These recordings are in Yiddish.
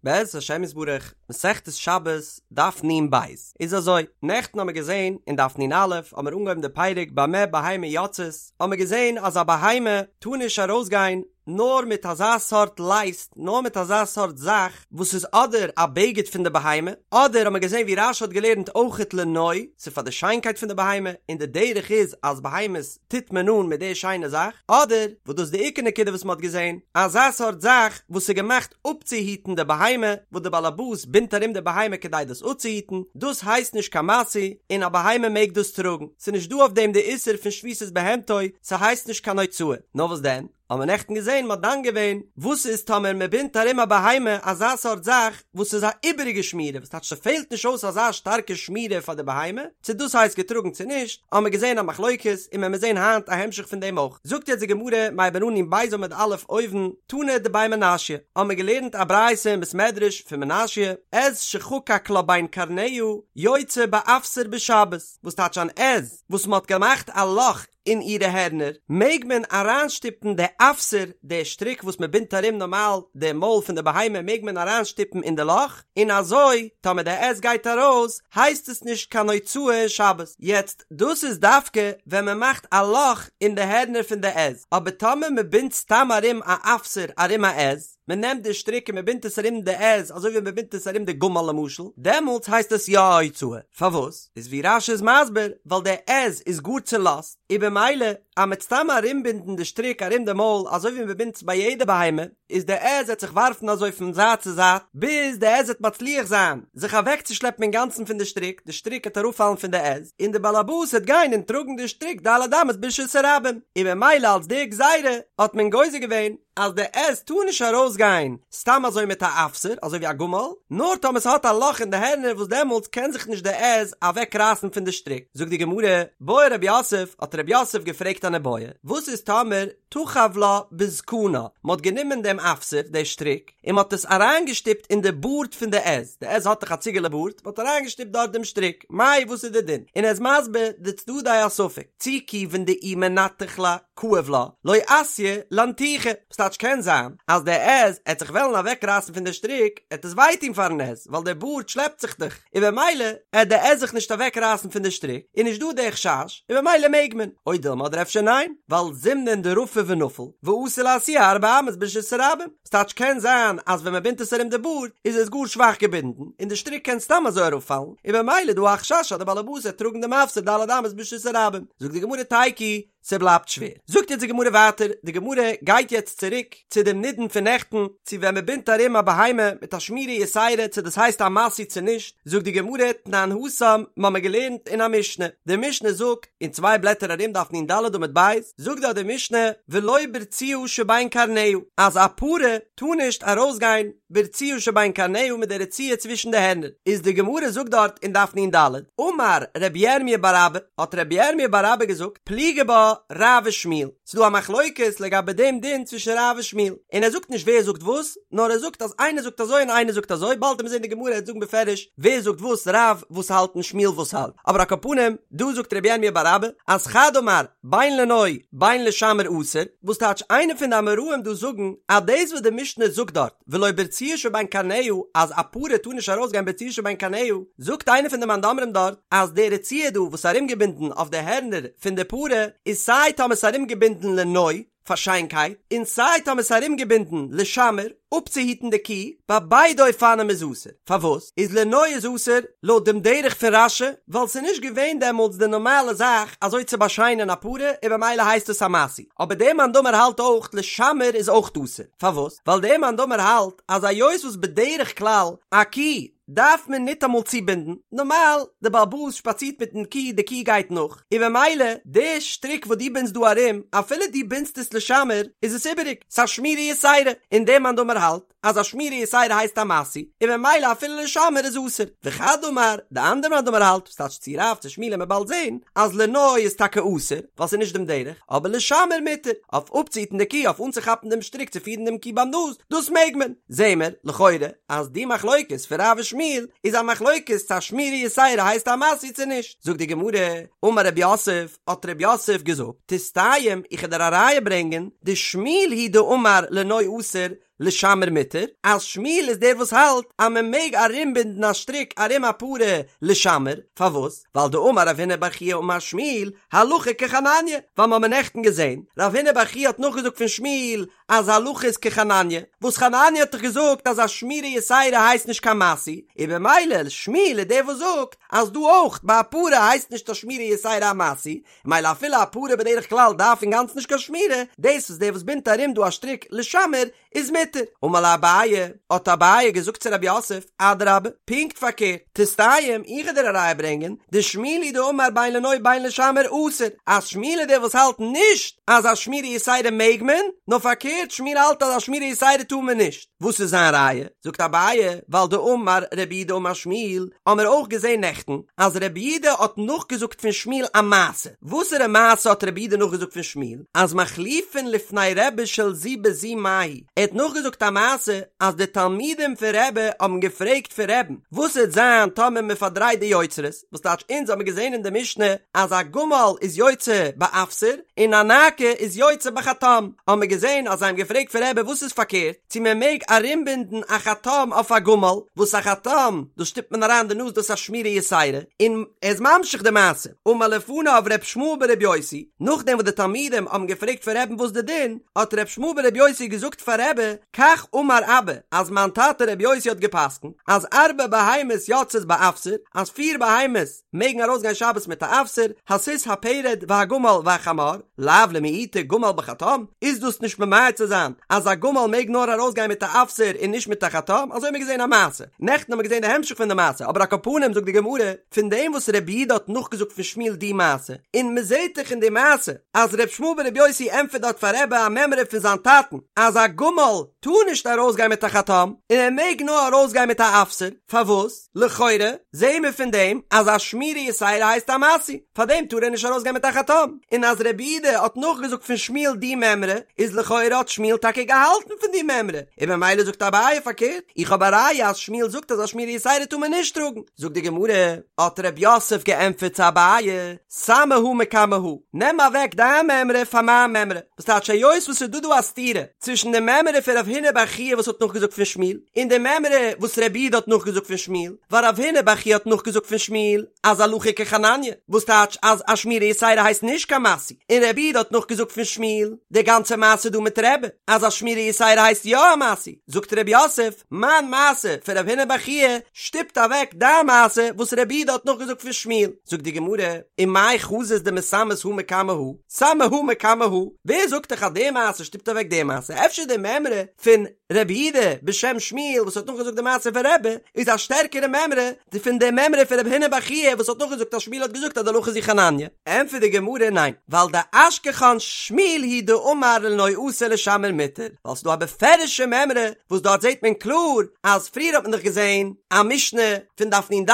בעזרת השם יתברך, מסכת שבת, דף נ ב, איז אזוי, נעכטן האמיר געזען אין דף נ א האמיר אנגעהויבן די פרק במה בהמה יוצאת, האמיר געזען אז א בהמה טאר נישט ארויסגיין נאר מיט אזא סארט לייסט, נאר מיט אזא סארט זאך וואס איז אדער א בגד פון די בהמה, אדער האמיר געזען ווי רשי האט געלערנט אויכעט לנוי, ס'איז פאר די שיינקייט פון די בהמה, און די דרך איז אז בהמות טוט מען אן מיט די שיינע זאך, אדער, וואס דאס איז די עיקר נקודה וואס מען האט געזען, אזא סארט זאך וואס איז געמאכט אפצוהיטן די בהמה, וואס די באלעבאס בינדט ארום די בהמה כדי דאס אפצוהיטן, דאס הייסט נישט קיין משוי, און א בהמה מעג דאס טראגן, ס'איז נישט דא אויף דעם די איסור פון שביתת בהמתו, ס'הייסט נישט קיין הוצאה, נאר וואס דען? האבן מיר נעכטן געזען מ'האט דן געווען וואס איז טאמער מ'בינדט ארום א בהמה אזא סארט זאך וואס איז א איבעריגע שמירה וואס טייטש ס'פעלט נישט אויס אזא שטארקע שמירה פאר די בהמה צו דאס הייסט געטראגן צו נישט האבן מיר געזען א מחלוקת און מען מיר זען היינט א המשך פון דעם אויך זאגט יעצט די גמרא מ'הייבן אן נ ב עמוד א' אויבן תנא דבי מנשיא האבן מיר געלערנט א ברייתא אין בית מדרש פון מנשיא עז שחקק לה בין קרניה יוצאה באפסר בשבת וואס טייטש אן עז וואס מ'האט געמאכט א לאך אין אירע הערנער, מעג מען אריינשטופן די אפסר, די שטריק וואס מען בינדט ארום נארמאל די מויל פון די בהמה מעג מען אריינשטופן אין די לאך, און אזוי טאמער די עז גייט ארויס הייסט עס נישט קיין הוצאה אין שבת. יעצט דאס איז דווקא ווען מען מאכט א לאך אין די הערנער פון די עז, אבער טאמער מען בינדט סתם ארום א אפסר ארום א עז, מען נעמט די שטריק און מען בינדט עס ארום די עז אזוי ווי מען בינדט עס ארום די גמל למשל, דעמאלטס הייסט עס יא א הוצאה, פארוואס? איז ווי רש"י איז מסביר, ווייל די עז איז גאר צולאזט, און במילא אז מ'עט סתם ארומבינדן די שטריק ארום די מויל אזוי ווי מען בינדט עס ביי יעדע בהמה, איז די עז עט זיך ווארפן אזוי פון זייט צו זייט, ביז די עז עט מצליח זיין זיך אוועקצושלעפן אינגאנצן פון די שטריק, די שטריק עט אראפפאלן פון די עז, און די באלעבאס עט גיין און טראגן די שטריק ד' אמות ברשות הרבים, און במילא אלס די גזירה האט מען גוזר געווען אז די עז טאר נישט ארויס גיין סתם אזוי מיט א אפסר אזוי ווי א גמל, נאר טאמער ס'האט א לאך אין די הערנער וואס דעמאלטס קען זיך נישט די עז אוועק רייסן פון די שטריק. זאגט די גמרא, בעי רב יוסף, האט רב יוסף געפרעגט אן איבעיא, וואס איז טאמער תחב לה בזקנה, מ'האט גענומען דעם אפסר, די שטריק, און מ'האט עס אריינגעשטופט אין די בארד פון די עז, די עז האט דאך א ציגעלע בארד, מ'האט אריינגעשטופט דארט דעם שטריק, מאי וואס איז די דין? און ער איז מסביר די צדדי הספק, צי כיוון דאי מנתח לה, כאיב לה, לא אתיא לאנתוחי, וואס טייטש קען זיין אז די עז עט זיך וועלן אוועק רייסן פון די שטריק, עט עס וויי טון פארן עז, ווייל די בארד שלעפט זיך דאך, און במילא עט די עז זיך נישט אוועק רייסן פון די שטריק, איז נישט דא די חשש, און במילא מעג מען, או דילמא אדער אפשר ניין, ווייל זימנין דרפי ונפיל, ואתי לאתויי ארבע אמות ברשות הרבים, ס'טייטש קען זיין אז ווען מ'בינדט עס ארום די בארד איז עס גאר שוואך געבינדן און די שטריק קען סתם אזוי אראפפאלן און במילא איז דא א חשש אז די באלעבאס וועט טראגן דעם אפסר ד' אמות ברשות הרבים. זאגט די גמרא תיקו, ס'בלייבט שווער. זאגט יעצט די גמרא ווייטער, די גמרא גייט יעצט צוריק צו דעם נידון פון נעכטן, צו ווען מ'בינדט ארום א בהמה מיט א שמירה יתירה צו דאס הייסט א משוי צו נישט, זאגט די גמרא תנן התם, מ'האמיר געלערנט אין א משנה, די משנה זאגט, אין צוויי בלעטער ארום דף נ"ד עמוד ב', זאגט דארט די משנה, ולא ברצועה שבין קרניה, אז א פרה טאר נישט ארויסגיין ברצועה שבין קרניה מיט די רצועה צווישן די הערנער, איז די גמרא זאגט דארט אין דף נ"ד, אמר רבי ירמי' בר אבא, האט רבי ירמי' בר אבא געזאגט, פליגי בה רב ושמואל, ס'איז דא א מחלוקת לגבי דעם דין צווישן רב און שמואל, און ער זאגט נישט ווער זאגט וואס, נאר ער זאגט אז איינער זאגט אזוי און איינער זאגט אזוי, באלד וועט מען זען די גמרא וועט זאגן בפירוש ווער זאגט וואס, רב וואס האלט און שמואל וואס האלט, אבער על כל פנים, דא זאגט רבי ירמי' בר אבא, אז חד אמר, בין לנוי בין לשמר אסור, וואס טייטש איינער פון די אמוראים דא זאגן אז דאס וואס די משנה זאגט דארט ולא ברצועה שבין קרניה אז א פרה טאר נישט ארויסגיין ברצועה שבין קרניה, זאגט איינער פון די מאן דאמרים דארט אז די רצועה דא וואס איז ארומגעבינדן אויף די הערנער פון די פרה איז סיי טאמער ס'איז ארומגעבינדן לנוי, פאר שיינקייט, און סיי טאמער ס'איז ארומגעבינדן לשמר, אפצוהיטן די קי, ביי ביידע אופנים איז אסור. פארוואס איז לנוי איז אסור? לויט דעם דרך פון רש"י, ווייל ס'איז נישט געווען דעמאלטס די נארמאלע זאך אזוי צו באשיינען א פרה און במילא הייסט עס א משוי. אבער דער מאן דאמר האלט אויך לשמר איז אויך אסור. פארוואס? ווייל דער מאן דאמר האלט אז היות וואס בדרך כלל א קי דארף מען ניטאמאל צובינדן, נארמאל די בעל הבית שפאצירט מיטן קי, די קי גייט נאך, און במילא די שטריק וואס דו בינדסט דא ארום, אפילו דו בינדסט עס לשמר, איז עס איבעריג, ס'איז א שמירה יתירה, און דער מאן דאמר האלט אז א שמירה יתירה הייסט א משוי, און במילא אפילו לשמר איז אסור. וחד אמר, די אנדערע מאן דאמר האלט, וואס טייטש צו רב צו שמואל וועט מען באלד זען, אז לנוי איז טאקע אסור, ווייל ס'איז נישט דעם דרך, אבער לשמר מותר, אויף אפצוהיטן די קי, אויף אנצוכאפן דעם שטריק צו פירן דעם קי ביים נאז, דאס מעג מען. זעהן מיר, לכאורה, אז די מחלוקת פון רב ושמואל איז א מחלוקת צו א שמירה יתירה הייסט א משוי צו נישט. זאגט די גמרא, אמר רב יוסף, האט רב יוסף געזאגט, תסתיים, איך וועל דיר א ראיה ברענגען, דשמואל הוא דאמר לנוי אסור, לשמר מותר, אז שמואל איז דער וואס האלט אז מען מעג ארומבינדן א שטריק ארום א פרה לשמר, פארוואס? ווייל דאמר רב הונא בר חייא אמר שמואל, הלכה כחנניה, ווייל מ'האמיר נעכטן געזען, רב הונא בר חייא האט נאכגעזאגט פון שמואל אז הלכה איז כחנניה, וואס חנניה האט דאך געזאגט אז א שמירה יתירה הייסט נישט קיין משוי, און במילא שמואל איז דער וואס זאגט אז דא אויך ביי א פרה הייסט נישט א שמירה יתירה א משוי, מילא אפילו א פרה בדרך כלל דארף אינגאנצן נישט קיין שמירה, דאס וואס דער וואס בינדט ארום דא א שטריק לשמר איז מותר. אמר ליה אביי, האט אביי געזאגט צו רב יוסף, אדרבה, פונקט פארקערט, תסתיים, איך וועל דיר א ראיה ברענגען, דשמואל הוא דאמר בין לנוי בין לשמר אסור, אז שמואל איז דער וואס האלט נישט אז א שמירה יתירה מעג מען, נאר פארקערט שמואל האלט אז א שמירה יתירה טאר מען נישט. וואס איז זיין ראיה? זאגט אביי, ווייל דאמר רב יהודה אמר שמואל, האמיר אויך געזען נעכטן אז רב יהודה האט נאכגעזאגט פון שמואל א מעשה, וואסערע מעשה האט רב יהודה נאכגעזאגט פון שמואל? אז מחליפין לפני רבי של זו בזו מהו, ער האט נאכגעזאגט א מעשה אז די תלמידים פון רבי האבן געפרעגט פון רבי'ן, וואס וועט זיין טאמער מען פארדרייט די יוצרות, וואס טייטש אונז האמיר געזען אין די משנה אז א גמל איז יוצא באפסר און א נאקה איז יוצא בחטם, האמיר געזען אז זיי האבן געפרעגט פון רבי וואס איז פארקערט, צו מען מעג ארומבינדן א חטם אויף א גמל, וואס א חטם דאס שטופט מען אריין די נאז דאס איז א שמירה יתירה, און ער איז ממשיך די מעשה, אמר לפניו ר' ישמעאל בר' יוסי, נאכדעם וואס די תלמידים האבן געפרעגט פון רבי'ן וואס די דין, האט ר' ישמעאל בר' יוסי געזאגט פאר רבי, כך אמר אבא, אז מיין טאטע ר' יוסי האט גע'פסק'נט, אז ארבע בהמות יוצאות באפסר, אז פיר בהמות מעגן ארויסגיין שבת מיט א אפסר, הסוס הפרד והגמל והחמור, לאו למעוטי גמל בחטם, איז דאס נישט ממעט צו זיין אז א גמל מעג נאר ארויסגיין מיט א אפסר און נישט מיט א חטם, אזוי האבן מיר געזען א מעשה, נעכטן האבן מיר געזען די המשך פון די מעשה, אבער על כל פנים זאגט די גמרא, פון דעם וואס רב יהודה האט נאכגעזאגט פון שמואל די מעשה, און מען זעט דאך אין די מעשה אז ר' ישמעאל בר' יוסי ענטפערט דארט פאר רבי א מימרא פון זיין טאטן אז א גמל טאר נישט ארויסגיין מיט א חטם און ער מעג נאר ארויסגיין מיט א אפסר, פארוואס? לכאורה זעהן מיר פון דעם אז א שמירה יתירה הייסט א משוי, פארדעם טאר ער נישט ארויסגיין מיט א חטם, און אז רב יהודה האט נאכגעזאגט פון שמואל די מימרא, איז לכאורה האט שמואל טאקע געהאלטן פון די מימרא, און במילא זאגט אביי פארקערט, איך האב א ראיה אז שמואל זאגט אז א שמירה יתירה טאר מען נישט טראגן. זאגט די גמרא, האט רב יוסף געענטפערט צו אביי, סמי הא מקמי הא, נעם אוועק דיין מימרא פאר מיין מימרא, וואס טייטש היות וואס ס'איז דא דא א סתירה צווישן די מימרא פון רב הונא בר חייא וואס האט נאכגעזאגט פון שמואל, און די מימרא וואס רב יהודה האט נאכגעזאגט פון שמואל, ווייל רב הונא בר חייא האט נאכגעזאגט פון שמואל אז הלכה כחנניה, וואס טייטש אז א שמירה יתירה הייסט נישט קיין משוי, און רב יהודה האט נאכגעזאגט פון שמואל די גאנצע מעשה דא מיט רבי אז א שמירה יתירה הייסט יא א משוי, זאגט רב יוסף, מיין מעשה פון רב הונא בר חייא שטופט אוועק דיין מעשה וואס רב יהודה האט נאכגעזאגט פון שמואל, זאגט די גמרא, ומאי חזית דמסמית הא מקמי הא, סמי הא מקמי הא, ווער זאגט דיך אז די מעשה שטופט אוועק די מעשה, אפשר די מימרא פון רב יהודה בשם שמואל וואס האט נאכגעזאגט די מעשה פון רבי איז א שטערקערע מימרא פון די מימרא פון רב הונא בר חייא וואס האט נאכגעזאגט אז שמואל האט געזאגט אז די הלכה איז ווי חנניה. ענטפערט די גמרא ניין, ווייל דאשכחן שמואל היא דאמר לנוי אסור לשמר מותר, ווייל ס'דא א בפירוש'ע מימרא וואס דארט זעט מען קלאר אז פריער האט מען דאך געזען א משנה פון דף נ"ד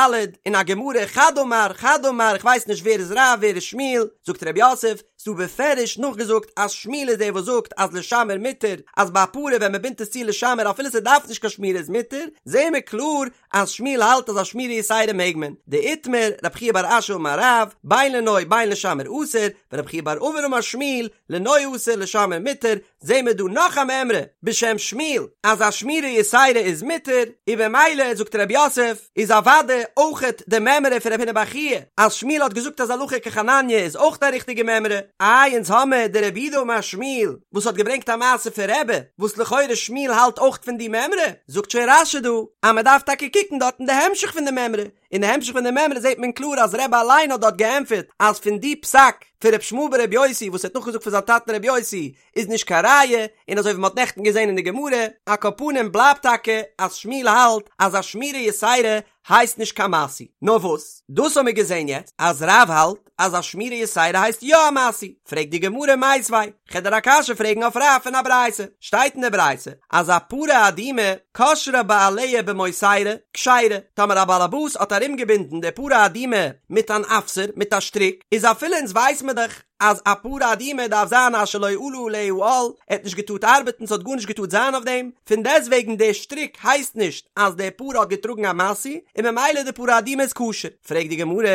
און א גמרא חד אמר חד אמר איך ווייס נישט ווער איז רב ווער איז שמואל, זאגט רב יוסף, ס'דא בפירוש נאכגעזאגט אז שמואל איז דער וואס זאגט אז לשמר מותר, אז ביי א פרה ווען מ'בינדט עס צו לשמר אפילו ס'דארף נישט קיין שמירה איז מותר, זעהן מיר קלאר אז שמואל האלט אז א שמירה יתירה מעג מען, דאיתמר, רב חייא בר אשי אמר רב, בין לנוי בין לשמר אסור, ורב חייא בר אבין אמר שמואל, לנוי אסור לשמר מותר, זעהן מיר דא נאך א מימרא בשם שמואל אז א שמירה יתירה איז מותר, און במילא זאגט רב יוסף איז אוודאי אויכעט די מימרא פון רב הונא בר חייא אז שמואל האט געזאגט אז הלכה כחנניה איז אויך א ריכטיגע מימרא, איי אונז האמער די רב יהודה אמר שמואל וואס האט געברענגט א מעשה פון רבי וואס לכאורה שמואל האלט אויך פון די מימרא, זאגט שוין רש"י דא אז מען דארף טאקע קוקן דארט אין די המשך פון די מימרא, אין די המשך פון די מימרא זעט מען קלאר אז רבי אליין האט דארט געענטפערט אז פון די פסק פון ר' ישמעאל בר' יוסי וואס ער האט נאכגעזאגט פון זיין טאטן ר' יוסי איז נישט קיין ראיה, און אזוי ווי מען האט נעכטן געזען אין די גמרא, על כל פנים בלייבט טאקע אז שמואל האלט אז א שמירה יתירה הייסט נישט קיין משוי. נאר וואס? דאס האמיר געזען יעצט אז רב האלט אז א שמירה יתירה הייסט יא א משוי, פרעגט די גמרא מיתיבי, כ'על דיר א קשיא פרעגן אויף רב פון א ברייתא, שטייט אין די ברייתא אז א פרה אדומה קשרה בעליה במוסרה, כשרה, טאמער א באלעבאס האט ארומגעבינדן די פרה אדומה מיט אן אפסר, מיט א שטריק, איז אפילו אונז ווייס מיר דאך. אז א פרה אדומה דארף זיין אשר לא עלה עליה עול, ער האט נישט געטארט ארבעטן ס'האט גארנישט געטארט זיין אויף דעם, פון דעסטוועגן די שטריק הייסט נישט אז די פרה האט געטראגן א משוי, און ממילא די פרה אדומה איז כשר. פרעגט די גמרא,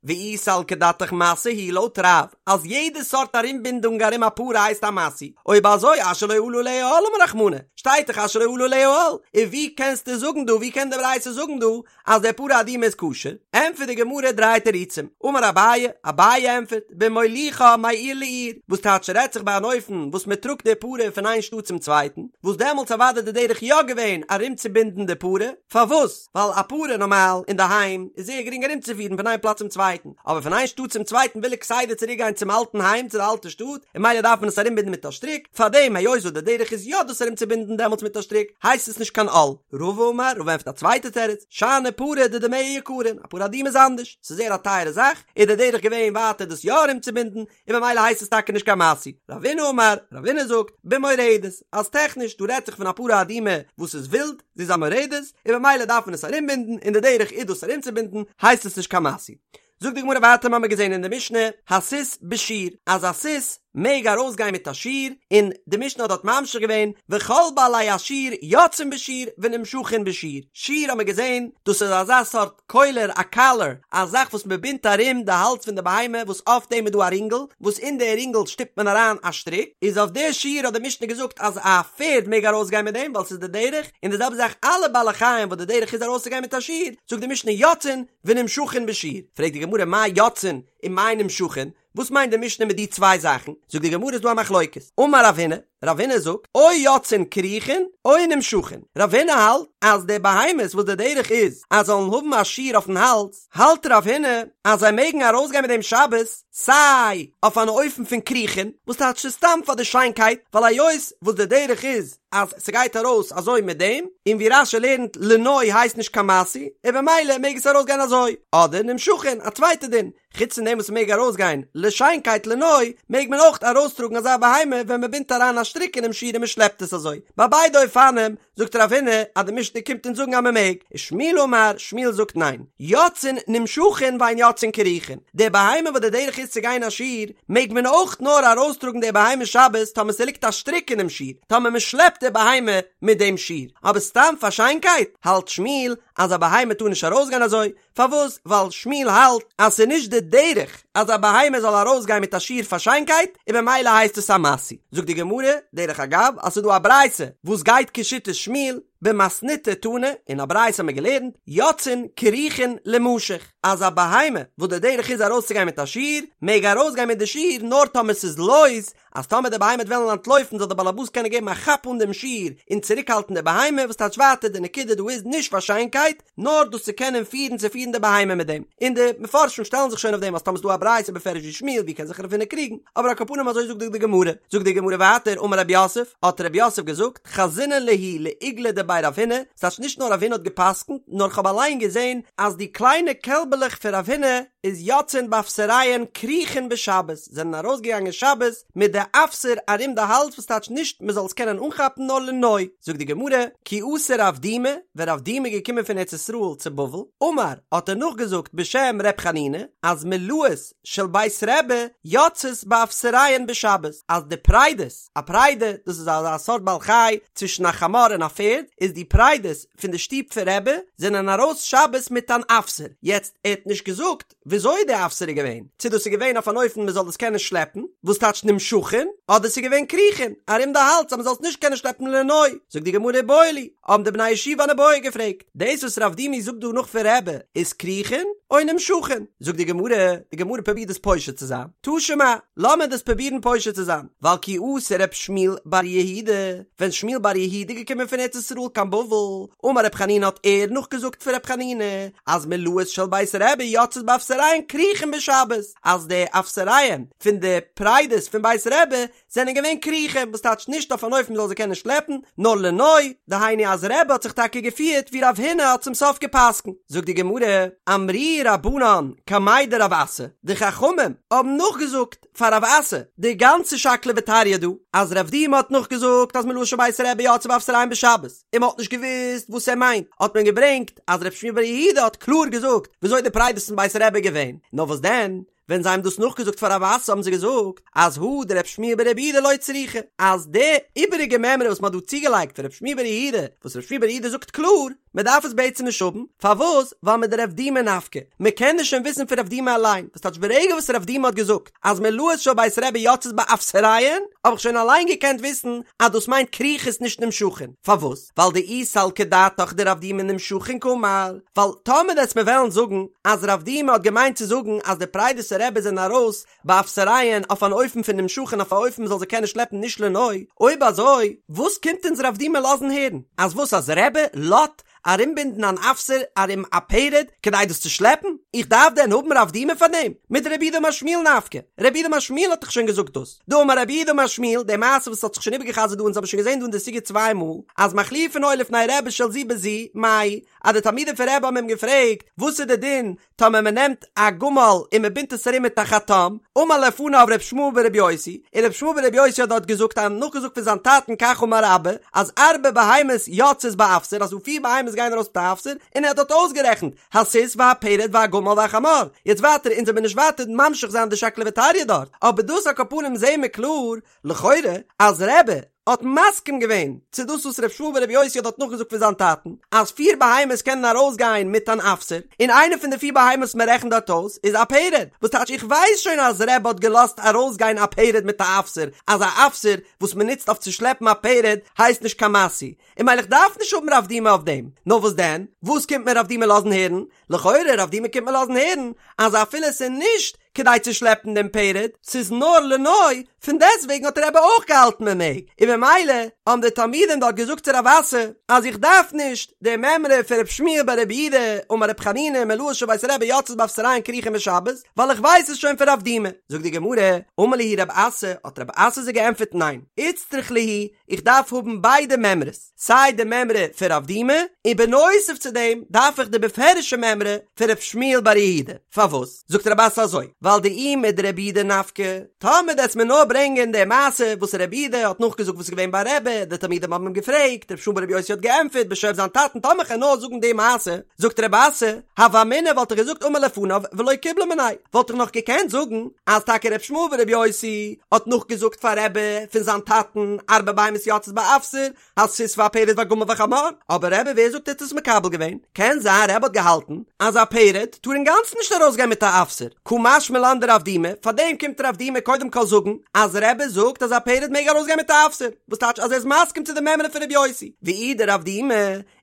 ואי סלקא דעתך משא הוא לויט רב אז יעדע סארט ארומבינדונג ארום א פרה הייסט א משוי, אויב אזוי אשר לא עלה עליה עול אמר רחמנא, שטייט דאך אשר לא עלה עליה עול, און ווי קענסטו זאגן דא ווי קען די ברייתא זאגן דא אז די פרה אדומה איז כשר? ענטפערט די גמרא דריי תירוצים, אמר אביי, אביי ענטפערט, במוליכה מעיר לעיר, וואס טייטש רעדט זיך ביי אן אופן וואס מען טראגט די פרה פון איין שטאט צום צווייטן, וואס דעמאלטס אוודאי די דרך יא געווען ארומצובינדן די פרה, פארוואס? ווייל א פרה נארמאל אינדערהיים איז זייער גרינג ארומצופירן פון איין פלאץ צום צווייטן, אבער פון איין שטאט צום צווייטן וויל ער כסדר צוריק גיין צום אלטן היים צו די אלטע שטאט, און ממילא דארף מען עס ארומבינדן מיט א שטריק, פארדעם היות וואס די דרך איז יא דאס ארומצובינדן דעמאלטס מיט א שטריק, הייסט עס נישט קיין עול. רבא אמר, רבא ענטפערט א צווייטע תירוץ, שאני פרה דדמיה יקרין, א פרה אדומה איז אנדערש, ס'איז זייער א טייערע זאך, איז די דרך געווען ווייטער דאס יא ארומצובינדן, און ממילא הייסט עס טאקע נישט קיין משוי. רבינא אמר, רבינא זאגט, במורדת, אז טעכניש דא רעדט זיך פון א פרה אדומה וואס איז ווילד, זי איז א מורדת, און ממילא דארף מען עס ארומבינדן, און די דרך איז דאס ארומצובינדן, הייסט עס נישט קיין משוי. זאגט די גמרא ווייטער מ'האמיר געזען אין די משנה, הסוס בשיר, אז א סוס מעג ארויסגיין מיט א שיר, און די משנה האט דארט ממשיך געווען, וכל בעלי השיר יוצאין בשיר ונמשכין בשיר, שיר האמיר געזען, דאס איז אזא סארט קולר א קאלער, א זאך וואס מען בינדט ארום די האלז פון די בהמה וואס אויף דעם איז דא א רינגל, וואס אין די רינגל שטופט מען אריין א שטריק, איז אויף די שיר האט די משנה געזאגט אז א פערד מעג ארויסגיין מיט דעם ווייל ס'איז די דרך, און די זעלבע זאך אלע בעלי חיים וואס די דרך איז ארויסצוגיין מיט א שיר, זאגט די משנה יוצאין ונמשכין בשיר, פרעגט די גמרא מאי יוצאין ומאי נמשכין, וואס מיינט די משנה מיט די צוויי זאכן? זאגט די גמרא איז דא א מחלוקת, אמר רב הונא, רב הונא זאגט, או יוצאין כרוכין או נמשכין, רב הונא האלט אז די בהמות וואס די דרך איז אז זאלן האבן א שיר אויפן האלז, האלט רב הונא אז זיי מעגן ארויסגיין מיט דעם שבת סיי אויף אן אופן פון כרוכין, וואס טייטש ס'איז סתם פאר די שיינקייט, ווייל היות וואס די דרך איז אז ס'גייט ארויס אזוי מיט דעם, און ווי רש"י לערנט לנוי הייסט נישט קיין משוי, און במילא מעג עס ארויסגיין אזוי, אדער נמשכין, א צווייטע דין, חוץ פון דעם וואס מ'מעג ארויסגיין לשיינקייט לנוי, מעג מען אויך ארויסטראגן אזא בהמה ווען מ'בינדט אריין א שטריק אינעם שיר און מ'שלעפט עס אזוי. ביי ביידע אופנים זאגט רב הונא אז די משנה קומט אונז זאגן אז מ'מעג, ושמואל אמר, שמואל זאגט ניין, יוצאין נמשכין ואין יוצאין כרוכין, די בהמה וואס די דרך איז צו גיין א שיר, מעג מען אויך נאר ארויסטראגן די בהמה שבת טאמער ס'ליגט א שטריק אינעם שיר, טאמער מ'שלעפט די בהמה מיט דעם שיר, אבער סתם פאר שיינקייט, האלט שמואל אז א בהמה טאר נישט ארויסגיין אזוי, פארוואס? ווייל שמואל האלט אז ס'איז נישט די דרך אז א בהמה זאל ארויסגיין מיט א שיר פאר שיינקייט, און במילא הייסט עס א משוי. זאגט די גמרא, דרך אגב, אז ס'איז דא א ברייתא וואס גייט כשיטת שמואל, במתניתא תנא, אין א ברייתא האט מען געלערנט, יוצאין כרוכין לימשך, אז א בהמה וואס די דרך איז ארויסצוגיין מיט א שיר, מעג ארויסגיין מיט די שיר נאר טאמער ס'איז לויז, אז טאמער די בהמה וועט וועלן אנטלויפן זאל דער באלעבאס קענען געבן א כאפ אן דעם שיר און צוריקהאלטן די בהמה, וואס טייטש ווייטער די נקודה דא איז נישט פאר שיינקייט, נאר דאס צו קענען פירן צו פירן די בהמה מיט דעם, און די מפרשים שטעלן זיך שוין אויף דעם אז טאמער ס'איז דא א ברייתא בפירוש ווי שמואל ווי קען זיך רב הונא קריגן, אבער על כל פנים אזוי זאגט די גמרא, זאגט די גמרא ווייטער אמר רב יוסף, האט רב יוסף געזאגט, חזינא להו לעיגלי דבי רב הונא, ס'טייטש נישט נאר רב הונא האט גע'פסק'נט, נאר כ'האב אליין געזען אז די קליינע קעלבעלעך פון רב הונא איז יוצאין באפסריהן כרוכין בשבת, זענען ארויסגעגאנגען שבת מיט די אפסר ארום די האלז וואס טייטש נישט מ'זאל עס קענען אנכאפן נאר לנוי, זאגט די גמרא, כי אתא רב דימי, ווען רב דימי איז געקומען פון ארץ ישראל צו בבל, אמר, האט ער נאכגעזאגט בשם ר' חנינא, אז מולאות של בית רבי יוצאות באפסריהן בשבת, אז די פרדות, א פרדה, דאס איז אזא סארט בעל חי צווישן א חמור און א פערד, איז די פרדות פון די שטוב פון רבי זענען ארויס שבת מיט אן אפסר, יעצט ער האט נישט געזאגט וויאזוי די אפסר איז געווען, צו דאס איז געווען אויף אן אופן מען זאל דאס קענען שלעפן, וואס טייטש נמשכין, אדער ס'איז געווען כרוכין, ארום די האלז אז מען זאל עס נישט קענען שלעפן לנוי, זאגט די גמרא איבעיא להו, האבן די בני ישיבה אן איבעיא געפרעגט, דאס וואס רב דימי זאגט דא נאך פון רבי איז כרוכין או נמשכין? זאגט די גמרא, די גמרא פרובירט דאס פושט צו זיין, תא שמע, לאמיר דאס פרובירן פושט צו זיין, ווייל כי אתא רב שמואל בר יהודה, ווען שמואל בר יהודה איז געקומען פון ארץ ישראל קיין בבל, אמר רב חנינא האט ער נאכגעזאגט פון רב חנינא, אז מולאות של בית רבי יוצאות באפסריהן כרוכין בשבת, אז די אפסריהן פון די פרדות פון בית רבי זענען געווען כרוכין, וואס טייטש נישט אויף אן אופן מ'זאל זיי קענען שלעפן, נאר לנוי, דהיינו אז רבי האט זיך טאקע געפירט ווי רב הונא האט צום סוף גע'פסק'נט. זאגט די גמרא, אמרוה רבנן קמיה דרב אסי, די חכמים האבן נאכגעזאגט פאר רב אסי די גאנצע שקלא וטריא דא, אז רב דימי האט נאכגעזאגט אז מולאות של בית רבי יוצאות באפסריהן בשבת, און מ'האט נישט געוואוסט וואס ער מיינט, האט מען געברענגט אז רב שמואל בר יהודה האט קלאר געזאגט וויאזוי די פרדות פון בית רבי געווען, נאר וואס דען? ווען זיי האבן דאס נאכגעזאגט פאר רב אסי האבן זיי געזאגט אז הא דרב שמואל בר רב יהודה לא צריכא, אז די איבעריגע מימרא וואס מען האט דא צוגעלייגט פון רב שמואל בר יהודה, וואס רב שמואל בר יהודה זאגט קלאר, מען דארף עס בעצם נישט האבן, פארוואס? ווייל מדרב דימי נפקא, מען קען עס שוין וויסן פון רב דימי אליין, וואס טייטש ברגע וואס רב דימי האט געזאגט אז מלאות של בית רבי יוצאות באפסריהן, האב איך שוין אליין געקענט וויסן אז דאס מיינט כרוכות נישט נמשכין, פארוואס? ווייל דאי סלקא דעתך דרב דימי נמשכין קאמר, ווייל טאמער וועסט מיר וועלן זאגן אז רב דימי האט געמיינט צו זאגן אז די פרדות פון רבי זענען ארויס באפסריהן אויף אן אופן פון נמשכין אויף א אופן מ'זאל זיי קענען שלעפן נישט לנוי, אויב אזוי וואס קומט אונז רב דימי לאזן הערן? אז וואס אז רבי לאזט ארומבינדן אן אפסר ארום א פרד כדי דאס צו שלעפן? איך דארף דען האבן רב דימי פאר דעם? מדרב יהודה אמר שמואל נפקא, רב יהודה אמר שמואל האט דאך שוין געזאגט דאס. דאמר רב יהודה אמר שמואל, די מעשה וואס האט זיך שוין איבערגעחזרט דא אונז האבן שוין געזען דא אין די סוגיא צוויי מאל, אז מחליפין היו לפני רבי של זו בזו, מהו, אז די תלמידים פון רבי האבן אים געפרעגט, וואס איז די דין טאמער מען נעמט א גמל און מען בינדט עס ארום מיט א חטם, אמר לפניו ר' ישמעאל ברבי יוסי, און ר' ישמעאל ברבי יוסי האט דארט געזאגט א נאכגעזאגט פון זיין טאטן כך אמר אבא, אז ארבע בהמות יוצאות באפסר אז דא פיר בהמות גייען ארויס מיט א אפסר, און ער האט דארט אויסגערעכנט, הסוס והפרד והגמל והחמור, יעצט ווייטער אונז וועמיר נישט ווייטער ממשיך זיין די שקלא וטריא דארט, אבער דאס על כל פנים זעהן מיר קלאר, לכאורה, אז רבי האט מסכים געווען צו דאס וואס ר' ישמעאל ברבי יוסי האט דארט נאכגעזאגט פון זיין טאטן, אז פיר בהמות קענען ארויסגיין מיט אן אפסר, און איינע פון די פיר בהמות וואס מען רעכנט דארט אויס איז א פרד, וואס טייטש איך ווייס שוין אז רבי האט געלאזט ארויסגיין א פרד מיט א אפסר, אז א אפסר וואס מען נוצט אויף צו שלעפן א פרד הייסט נישט קיין משוי, און ממילא איך דארף נישט האבן רב דימי אויף דעם, נאר וואס דען? וואס קומט מיר רב דימי לאזן הערן? לכאורה רב דימי קומט מיר לאזן הערן אז אפילו ס'איז נישט כדי צו שלעפן דעם פרד, ס'איז נאר לנוי, פון דעסטוועגן האט רבי אויך געהאלטן מען מעג, און ממילא האבן די תלמידים דארט געזאגט צו רב אסי אז איך דארף נישט די מימרא פון ר' שמואל בר רב יהודה אמר ר' חנינא מלאות של בית רבי יוצאות באפסריהן כרוכין בשבת, ווייל איך ווייס עס שוין פון רב דימי. זאגט די גמרא, אמר להו רב אסי, האט רב אסי זיי געענטפערט ניין, איצטריך להו, איך דארף האבן ביידע מימרות, סיי די מימרא פון רב דימי, און בנוסף צו דעם דארף איך די בפירוש'ע מימרא פון ר' שמואל בר יהודה. פארוואס? זאגט רב אסי אזוי, ווייל דאי מדרב יהודה נפקא, טאמער דו וועסט מיר נאר ברענגען די מעשה וואס רב יהודה האט נאכגעזאגט וואס איז געווען ביי רבי, די תלמידים האבן אים געפרעגט, ר' שמואל ברבי יוסי האט געענטפערט בשם זיין טאטן, טאמער כ'על נאר זאגן די מעשה, זאגט רב אסי, הוה אמינא וואלט איך געזאגט אמר לפניו ולא קיבלה מיניה, וואלט איך נאך געקענט זאגן אז טאקע ר' ישמעאל ברבי יוסי האט נאכגעזאגט פאר רבי פון זיין טאטן ארבע בהמות יוצאות באפסר, הסוס והפרד והגמל והחמור, אבער רבי ווער זאגט ער האט עס מקבל געווען? קען זיין רבי האט געהאלטן אז א פרד טאר אינגאנצן נישט ארויסגיין מיט א אפסר, קא משמע לן דרב דימי, פארדעם קומט רב דימי קודם כל זאגן אז רבי זאגט אז א פרד מעג ארויסגיין מיט א אפסר, וואס טייטש אז ער איז מסכים צו די מימרא פון רבי יוסי, ואי דרב דימי,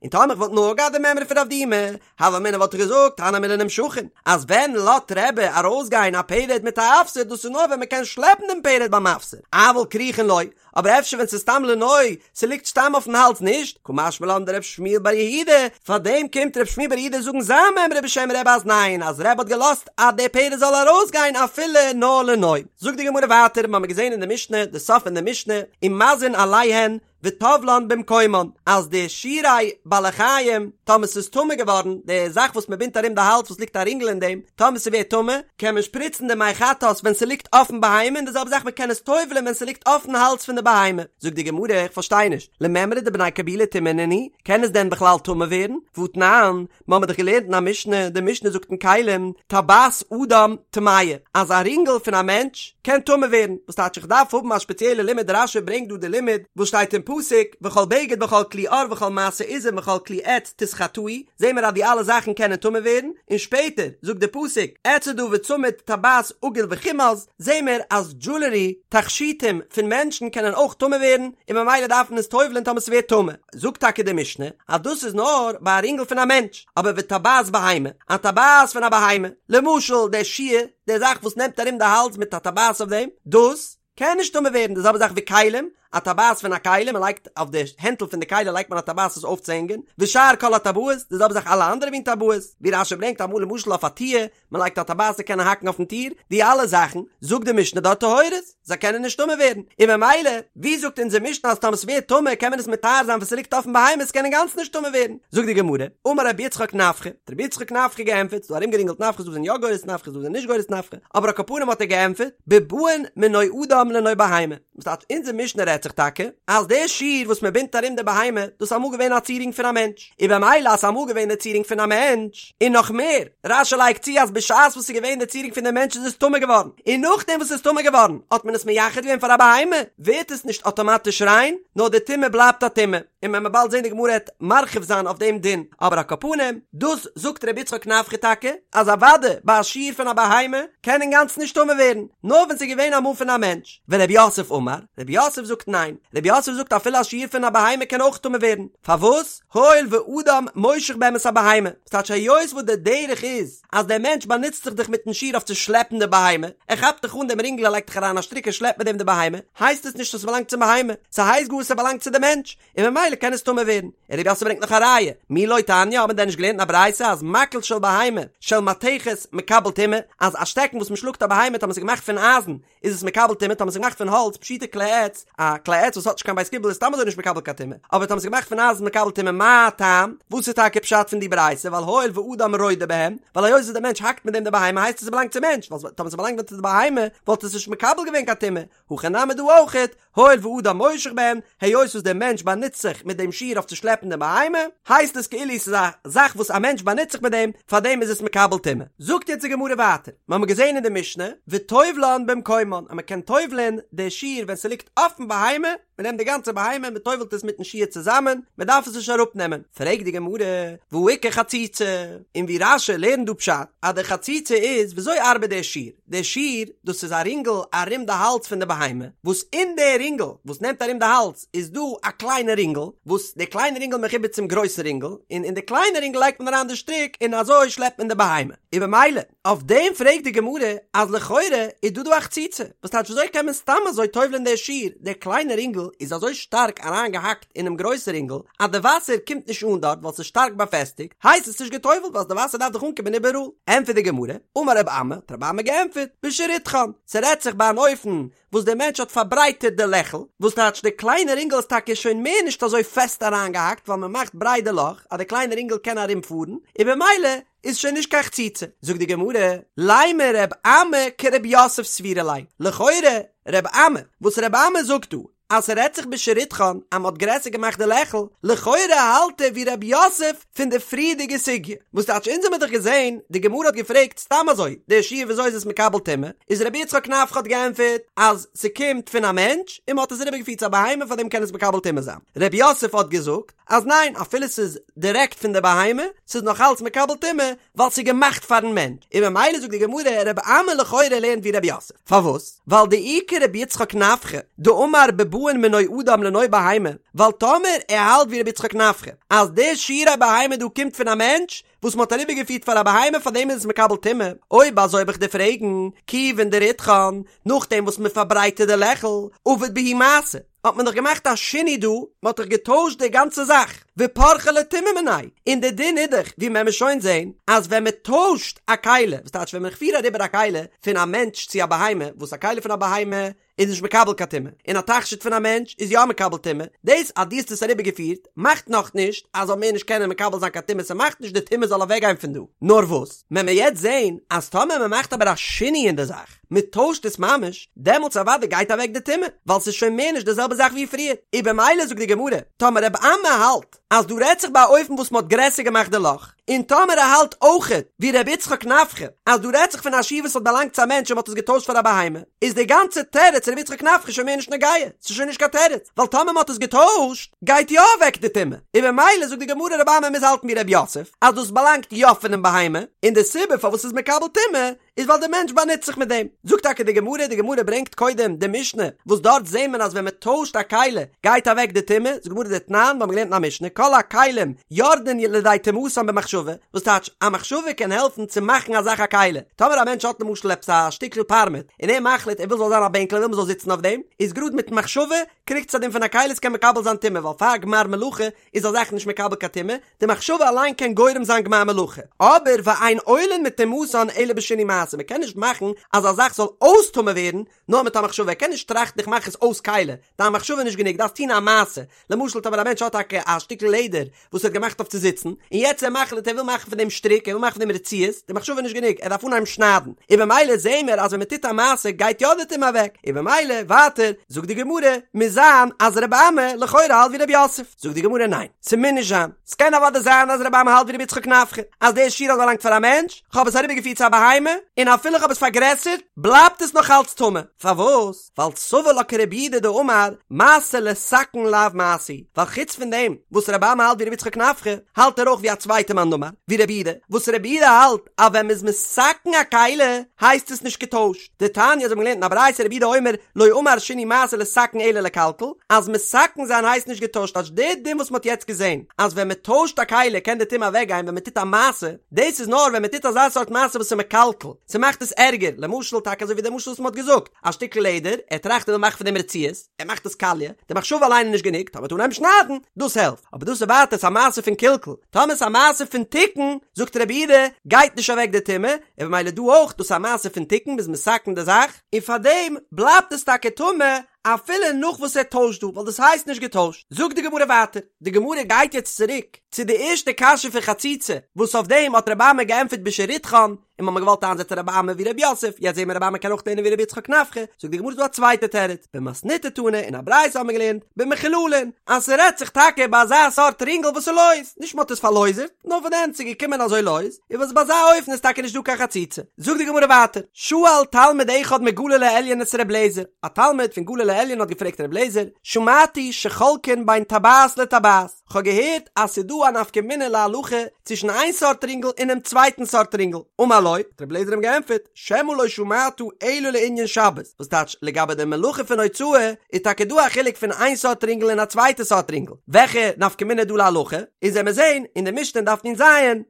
און טאמער איך וואלט נאר געהאט די מימרא פון רב דימי, הוה אמינא וואלט איך געזאגט הני מילי נמשכין, אז ווען לאזט רבי ארויסגיין א פרד מיט א אפסר דאס איז נאר ווען מ'קען שלעפן דעם פרד ביים אפסר, אבל כרוכין לא, אבער אפשר ווען ס'איז סתם לנוי, ס'ליגט סתם אויפן האלז נישט, קא משמע לן דרב שמואל בר יהודה, פארדעם קומט רב שמואל בר יהודה זאגן זיין מימרא בשם רבי אז ניין, אז רבי האט געלאזט אז דער פרד זאל ארויסגיין אפילו נאר לנוי. זאגט די גמרא ווייטער, מ'האמיר געזען אין די משנה, די סוף פון די משנה, ומזין עליהן, וטובלן במקומן, אז די שירי בעלי חיים, טאמער ס'איז טמא געווארן, די זאך וואס מ'בינדט ארום די האלז וואס ליגט א רינגל אין דעם, טאמער ס'ווערט טמא, קען מען שפריצן די מי חטאת ווען ס'ליגט אויפן בהמה, און די זעלבע זאך מ'קען עס טובל'ען ווען ס'ליגט אויפן האלז פון די בהמה. זאגט די גמרא, איך פארשטיי נישט, למימרא דבני קבולי טומאה נינהו, קען עס דען בכלל טמא ווערן? והתנן, מ'האמיר דאך געלערנט אין א משנה, די משנה זאגט אין כלים, טבעת אדם טמאה, אז א רינגל פון א מענטש קען טמא ווערן, וואס טייטש איך דארף האבן א ספעציעלע לימוד, רש"י ברענגט דא די לימוד וואס שטייט אין פסוק, וכל בגד וכל כלי עור וכל מעשה עזים וכל כלי עץ תתחטאו, זעהן מיר אז די אלע זאכן קענען טמא ווערן, און שפעטער זאגט די פסוק, אצעדה וצמיד טבעת עגול וכומז, זעהן מיר אז דזשולערי, תכשיטים, פון מענטשן קענען אויך טמא ווערן, און ממילא דארף מען עס טובל'ען טאמער ס'ווערט טמא. זאגט טאקע די משנה אז דאס איז נאר ביי א רינגל פון א מענטש, אבער וטבעת בהמה, א טבעת פון א בהמה, למשל דער שיר, די זאך וואס נעמט ארום די האלז מיט א טבעת אויף דעם, דאס קען נישט טמא ווערן, די זעלבע זאך ווי כלים, א טבעת פון א כלי, מען לייגט אויף די הענטל פון די כלי לייגט מען א טבעת עס אויפצוהענגען, ושאר כל הטבעות, די זעלבע זאך אלע אנדערע מין טבעות, ווי רש"י ברענגט אמאל למשל אויף א טיר, מען לייגט א טבעת צו קענען האקן אויפן טיר, די אלע זאכן, זאגט די משנה דארט טהורות, זיי קענען נישט טמא ווערן, און ממילא, ווי זאגט אונזער משנה אז טאמער ס'ווערט טמא קען מען עס מטהר זיין ווען ס'ליגט אויפן בהמה עס קען אינגאנצן נישט טמא ווערן, זאגט די גמרא, אמר רבי יצחק נפחא, האט רבי יצחק נפחא געענטפערט, ס'דא ארומגערינגלט נפחא ס'דא זענען יא גורס נפחא ס'דא זענען נישט גורס נפחא, אבער על כל פנים האט ער געענטפערט, בבאין מנוי אדם לנוי בהמה. וואס טייטש אונזער משנה רעדט זיך טאקע אז די שיר וואס מען בינדט ארום די בהמה דאס איז אמאל געווען א צירונג פון א מענטש, און במילא אז ס'איז אמאל געווען די צירונג פון א מענטש, און נאך מער, רש"י לייגט צו אז בשעת וואס ס'איז געווען די צירונג פון די מענטש איז עס טמא געווארן, און נאכדעם וואס ס'איז טמא געווארן האט מען עס מייחד געווען פאר א בהמה, ווערט עס נישט אטאמאטיש ריין, נאר די טומאה בלייבט א טומאה, און מען וועט באלד זען די גמרא העט מרחיב זיין אויף דעם דין, אבער על כל פנים, דאס זאגט רבי יצחק נפחא טאקע, אז אוודאי ביי א שיר פון א בהמה קען אינגאנצן נישט טמא ווערן, נאר ווען ס'איז געווען אמאל פון א מענטש. ורב יוסף אמר, רב יוסף זאגט ניין, רב יוסף זאגט אפילו א שיר פון א בהמה קען אויך טמא ווערן, פארוואס? הואיל ואדם מושך בהם את הבהמה, ס'טייטש היות וואס די דרך איז אז דער מענטש באנוצט זיך דאך מיטן שיר אויף צו שלעפן די בהמה, ער כאפט דאך אן דעם רינגל ער לייגט דאך אריין א שטריק ער שלעפט מיט דעם די בהמה, הייסט עס נישט אז ס'באלאנגט צום בהמה, ס'הייסט גאר ס'באלאנגט צו די מענטש, און ממילא קען עס טמא ווערן. און רב יוסף ברענגט נאך א ראיה, מי לא תניא, האט מען דען נישט געלערנט אין א ברייתא אז מקל של בהמה של מתכת מקבל טומאה, אז א שטעקן וואס מ'שלאגט א בהמה טאמער ס'איז געמאכט פון אייזן איז עס מקבל טומאה, טאמער ס'איז געמאכט פון האלץ פשוטי כלי עץ, א כלי עץ וואס האט נישט קיין בית קיבול איז סתם אזוי נישט מקבל קיין טומאה, אבער טאמער ס'איז געמאכט פון אייזן איז מקבל טומאה, מה טעם? וואס איז טאקע פשט פון די ברייתא, ווייל הואיל ואדם רודה בהם, ווייל היות וואס דער מענטש האקט מיט דעם די בהמה הייסט עס ס'באלאנגט צום מענטש, ווייל טאמער ס'באלאנגט ווען צו די בהמה וואלט עס נישט מקבל געווען קיין טומאה, הכא נמי דא אויכעט, הואיל ואדם מושך בהם, היות וואס דער מענטש באנוצט זיך מיט דעם שיר אויף צו שלעפן די בהמה, הייסט עס כאילו ס'איז א זאך וואס א מענטש באנוצט זיך מיט דעם, פארדעם איז עס מקבל טומאה. זאגט יעצט די גמרא ווייטער, מיר האבן געזען אין די משנה, וטובלן במקומן, אז מען קען טובל'ען די שיר ווען ס'ליגט אויפן בהמה, מען נעמט די גאנצע בהמה און מען טובל'ט עס מיטן שיר צוזאמען, מען דארף עס נישט אראפנעמען. פרעגט די גמרא, והא איכא חציצה? און ווי רש"י לערנט דא פשט, אז די חציצה איז, וויאזוי ארבעט דער שיר? דער שיר, דאס איז א רינגל ארום די האלז פון די בהמה, וואס אין די רינגל וואס נעמט ארום די האלז איז דא א קליינע רינגל, וואס די קליינע רינגל מחובר צום גרויסן רינגל, און אין די קליינע רינגל לייגט מען אריין די שטריק און אזוי שלעפט מען די בהמה. און במילא, אויף דעם פרעגט די גמרא אז לכאורה איז דא דא א חציצה, וואס טייטש וויאזוי קען מען סתם אזוי טובל'ען די שיר, דער קליינע רינגל איז אזוי שטארק אריינגעהאקט אינעם גרויסן רינגל אז די וואסער קומט נישט אן דארט ווייל ס'איז שטארק באפעסטיגט, הייסט עס נישט גע'טובל'ט ווייל די וואסער דארף דאך אנקומען איבעראל. ענטפערט די גמרא, אמר רב אמי, האט רב אמי געענטפערט, בשריתכן, ס'רעדט זיך ביי אן אופן וואס דער מענטש האט פארברייטערט די לעכל, וואס טייטש די קליינע רינגל איז טאקע שוין מער נישט אזוי פעסט אריינגעהאקט ווייל מ'מאכט ברייט די לאך אז די קליינע רינגל קען ארומפארן, און במילא איז שוין נישט קיין חציצה. זאגט די גמרא, לימא רב אמי כרב יוסף סבירא ליה, לכאורה רב אמי, וואס רב אמי זאגט דא, אז ס'רעדט זיך בשריתכן אז מ'האט גרעסער געמאכט די לעכל, לכאורה האלט ער ווי רב יוסף פון די פריערדיגע סוגיא, וואס טייטש אונז האמיר דאך געזען, די גמרא האט געפרעגט סתם אזוי, די שיר וויאזוי איז עס מקבל טומאה, איז רבי יצחק נפחא האט געענטפערט אז ס'קומט פון א מענטש און מ'האט עס אריבערגעפירט צו א בהמה פארדעם קען עס מקבל טומאה זיין, רב יוסף האט געזאגט אז ניין אפילו ס'איז דירעקט פון די בהמה ס'איז נאך אלץ מקבל טומאה ווייל ס'איז געמאכט פארן מענטש, און ממילא זאגט די גמרא רבי אמי לכאורה לערנט ווי רב יוסף, פארוואס? ווייל דאי כרבי יצחק נפחא דאמר בבאין מנוי אדם לנוי בהמה, ווייל טאמער ער האלט ווי רבי יצחק נפחא אז די שירי בהמה דא קומט פון א מענטש וואס מ'האט אריבערגעפירט פאר א בהמה פאר דעם איז עס מקבל טומאה, אויב אזוי וועל איך דיר פרעגן, כיוון דריתכן, נאכדעם וואס מ'פארברייטערט די לעכל, עביד בהו מעשה. האט מען דאך געמאכט א שינוי דא, מען האט דאך געטוישט די גאנצע זאך, ופרחה ליה טומאה מיניה, און די דין איז דאך, ווי מען וועט שוין זען, אז ווען מען טוישט א כלי, וואס טייטש ווען מען כ'פיר אריבער א כלי פון א מענטש צו א בהמה, וואס א כלי פון א בהמה איז נישט מקבל קיין טומאה, און א תכשיט פון א מענטש איז יא מקבל טומאה, דאס אז דו האסט עס אריבער געפירט, מאכט נאך נישט אז זאל מער נישט קענען מקבל זיין קיין טומאה, ס'מאכט נישט די טומאה זאל אוועק גיין פון דא, נאר וואס, מען וועט יעצט זען אז טאמער מען מאכט אבער א שינוי אין די זאך, מען טוישט עס ממש, דעמאלטס אוודאי גייט אוועק די טומאה, ווייל ס'איז שוין מער נישט די זעלבע זאך ווי פריער, און במילא זאגט די גמרא, טאמער רב אמי האלט אז דא רעדט זיך ביי א אופן וואס מען האט גרעסער געמאכט די לאך, און טאמער ער האלט אויכעט ווי ר' יצחק נפחא אז דא רעדט זיך פון א שיר וואס האט באלאנגט צו א מענטש און מען האט עס געטוישט פאר א בהמה, איז די גאנצע תירוץ ר' יצחק נפחא שוין מער נישט נוגע, ס'איז שוין נישט קיין תירוץ, ווייל טאמער מען האט עס געטוישט גייט יא אוועק די טומאה, און במילא זאגט די גמרא רב אמי מוז האלטן ווי ר' יוסף אז דאס באלאנגט יא פונעם בהמה, און די סיבה פארוואס ס'איז מקבל טומאה איז ווייל דער מענטש באנוצט זיך מיט דעם. זאגט טאקע די גמרא, די גמרא ברענגט קודם די משנה, וואס דארט זעהט מען אז ווען מען טוישט א כלי גייט אוועק די טומאה, זאגט די גמרא דתנן, מיר האבן געלערנט אין א משנה, כל הכלים יורדין לידי טומאתן במחשבה, וואס טייטש, א מחשבה קען העלפן צו מאכן א זאך א כלי, טאמער א מענטש האט למשל עפעס א שטיקל פארמעט, און ער מחליט ער וויל ס'זאל זיין א בענקל ער וויל מען זאל זיצן אויף דעם, איז גראד מיטן מחשבה קריגט עס א דין פון א כלי עס קען מקבל זיין טומאה, ווייל פאר גמר מלאכה איז א זאך נישט מקבל קיין טומאה, די מחשבה אליין קען גורם זיין גמר מלאכה, אבער ואין עולין מטומאתן אלא בשינוי מעשה. מעשה, מ'קען נישט מאכן אז א זאך זאל אויס טמא ווערן נאר מיט א מחשבה, ער קען נישט טראכטן איך מאך עס אויס כלי, דיין מחשבה איז נישט גענוג, דארפסט טון א מעשה, למשל טאמער א מענטש האט טאקע א שטיקל לעדער וואס ער האט געמאכט אויף צו זיצן, און יעצט ער מחליט ער וויל מאכן פון דעם שטריק, ער וויל מאכן פון דעם רצועות, די מחשבה איז נישט גענוג, ער דארף אנהייבן שניידן, און במילא זעהן מיר אז ווען מען טוט א מעשה גייט יא די טומאה אוועק, און במילא ווייטער זאגט די גמרא מוז זיין אז רבי אמי לכאורה האלט ווי רב יוסף, זאגט די גמרא ניין, ס'מוז נישט זיין, ס'קען אוודאי זיין אז רבי אמי האלט ווי רבי יצחק נפחא, אז דער שיר האט באלאנגט פאר א מענטש, כ'האב עס אריבערגעפירט צו א בהמה, און אפילו כ'האב עס פארגרעסערט, בלייבט עס נאך אלץ טמא, פארוואס? ווייל סבר לה כרבי יהודה דאמר מעשה לתקן לאו מעשה הוא, ווייל חוץ פון דעם וואס רבי אמי האלט ווי רבי יצחק נפחא, האלט ער אויך ווי א צווייטע מאן דאמר, ווי רבי יהודה, וואס רבי יהודה האלט אז ווען מ'איז מתקן א כלי הייסט עס נישט געטוישט, דתניא אזוי האבן מיר געלערנט אין א ברייתא רבי יהודה אומר לא אמר שינוי מעשה לתקן אלא לקלקל, אז מתקן זיין הייסט נישט געטוישט אז די דין וואס מ'האט יעצט געזען אז ווען מ'טוישט א כלי קען די טומאה אוועק גיין ווען מ'טוט א מעשה, דאס איז נאר ווען מ'טוט אזא סארט מעשה וואס איז מקלקל, ס'מאכט עס ערגער, למשל טאקע אזוי ווי די משל וואס מ'האט געזאגט, א שטיקל לעדער, ער טראכט ער וויל מאכן פון דעם רצועות, ער מאכט עס קאליע, די מחשבה אליין איז נישט גענוג, טאמער מ'טוט אנהייבן שניידן, דאס העלפט, אבער דאס איז ווייטער ס'איז א מעשה פון קלקול, טאמער ס'איז א מעשה פון תיקון, זאגט רבי יהודה, גייט נישט אוועק די טומאה, און במילא דא אויך, דאס איז א מעשה פון תיקון, מ'איז מתקן די זאך, און פארדעם בלייבט עס טאקע טמא, אפילו נאך וואס ער טוישט דא, ווייל דאס הייסט נישט געטוישט. זאגט די גמרא ווייטער, די גמרא גייט יעצט צוריק צו די ערשטע קשיא פון חציצה, וואס אויף דעם האט רבי אמי געענטפערט בשריתכן, און מ'האמיר געוואלט איינזעצן רבי אמי ווי רב יוסף, יעצט זעהן מיר רבי אמי קען אויך לערנען ווי רבי יצחק נפחא, זאגט די גמרא ס'דא א צווייטע תירוץ, במתניתא תנא, אין א ברייתא האבן מיר געלערנט, במחוללין, אז ס'רעדט זיך טאקע ביי אזא סארט רינגל וואס איז לויז, נישט מ'האט עס פארלויזערט, נאר פון די הענט ס'איז געקומען אזוי לויז, און וואס ביי אזא אופן איז טאקע נישט דא קיין חציצה. זאגט די גמרא ווייטער, שאל תלמיד אחד מגליל העליון את ר' אליעזר, א תלמיד פון גליל העליון האט געפרעגט ר' אליעזר, שמעתי שחולקין בין טבעת לטבעת, כ'האב געהערט אז ס'איז דא א נפקא מינה להלכה צווישן איין סארט רינגל און דעם צווייטן סארט רינגל, אמר לו, האט ר' אליעזר אים געענטפערט, שמא לא שמעת אלא לענין שבת, וואס טייטש לגבי די מלאכה פון הוצאה איז טאקע דא א חילוק פון איין סארט רינגל און א צווייטע סארט רינגל, וועלכע נפקא מינה איז דא להלכה? איז וועמיר זעהן אין די משנה אין דף נ"ז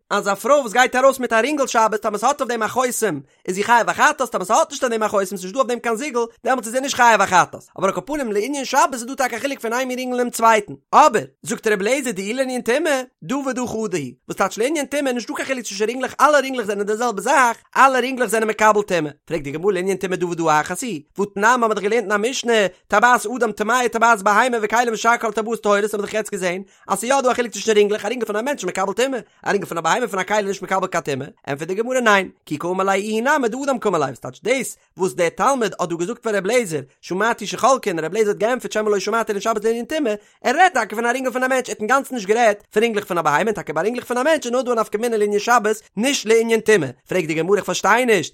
אז א פרוי וואס גייט ארויס מיט א רינגל שבת טאמער ס'האט אויף דעם א חותם איז זי חייב א חטאת טאמער ס'האט נישט אויף דעם א חותם ס'נישט דא אויף דעם קיין זיגל דעמאלטס איז זי נישט חייב א חטאת אבער על כל פנים לענין שבת איז דא טאקע א חילוק פון איין מין רינגל און דעם צווייטן אבער זאגט רבי אליעזר דאי לענין טומאה דא ודא חדא היא וואס טייטש לענין טומאה נישט דא קיין חילוק צווישן רינגלעך אלע רינגלעך זענען די זעלבע זאך אלע רינגלעך זענען מקבל טומאה פרעגט די גמרא לענין טומאה דא ודא אחת היא והתנן האמיר דאך געלערנט אין א משנה טבעת אדם טמאה טבעת בהמה וכלים ושאר כל טבעות טהורות האבן מיר דאך יעצט געזען אז ס'איז יא דא א חילוק צווישן רינגלעך, א רינגל פון א מענטש איז מקבל טומאה, א רינגל פון א בהמה פון א כלי איז נישט מקבל קיין טומאה, ענטפערט די גמרא ניין, כי קאמר ליה איהו נמי דאדם קאמר ליה, וואס טייטש דאס וואס דער תלמיד האט דא געזאגט פאר ר' אליעזר, שמעתי שחולקין, ר' אליעזר האט געענטפערט שמא לא שמעת אלא שבת לענין טומאה, ער רעדט טאקע פון א רינגל פון א מענטש, ער האט אינגאנצן נישט גערעדט פון רינגלעך פון א בהמה, און טאקע ביי רינגלעך פון א מענטש איז נאר דא א נפקא מינה לענין שבת, נישט לענין טומאה, פרעגט די גמרא איך פארשטיי נישט,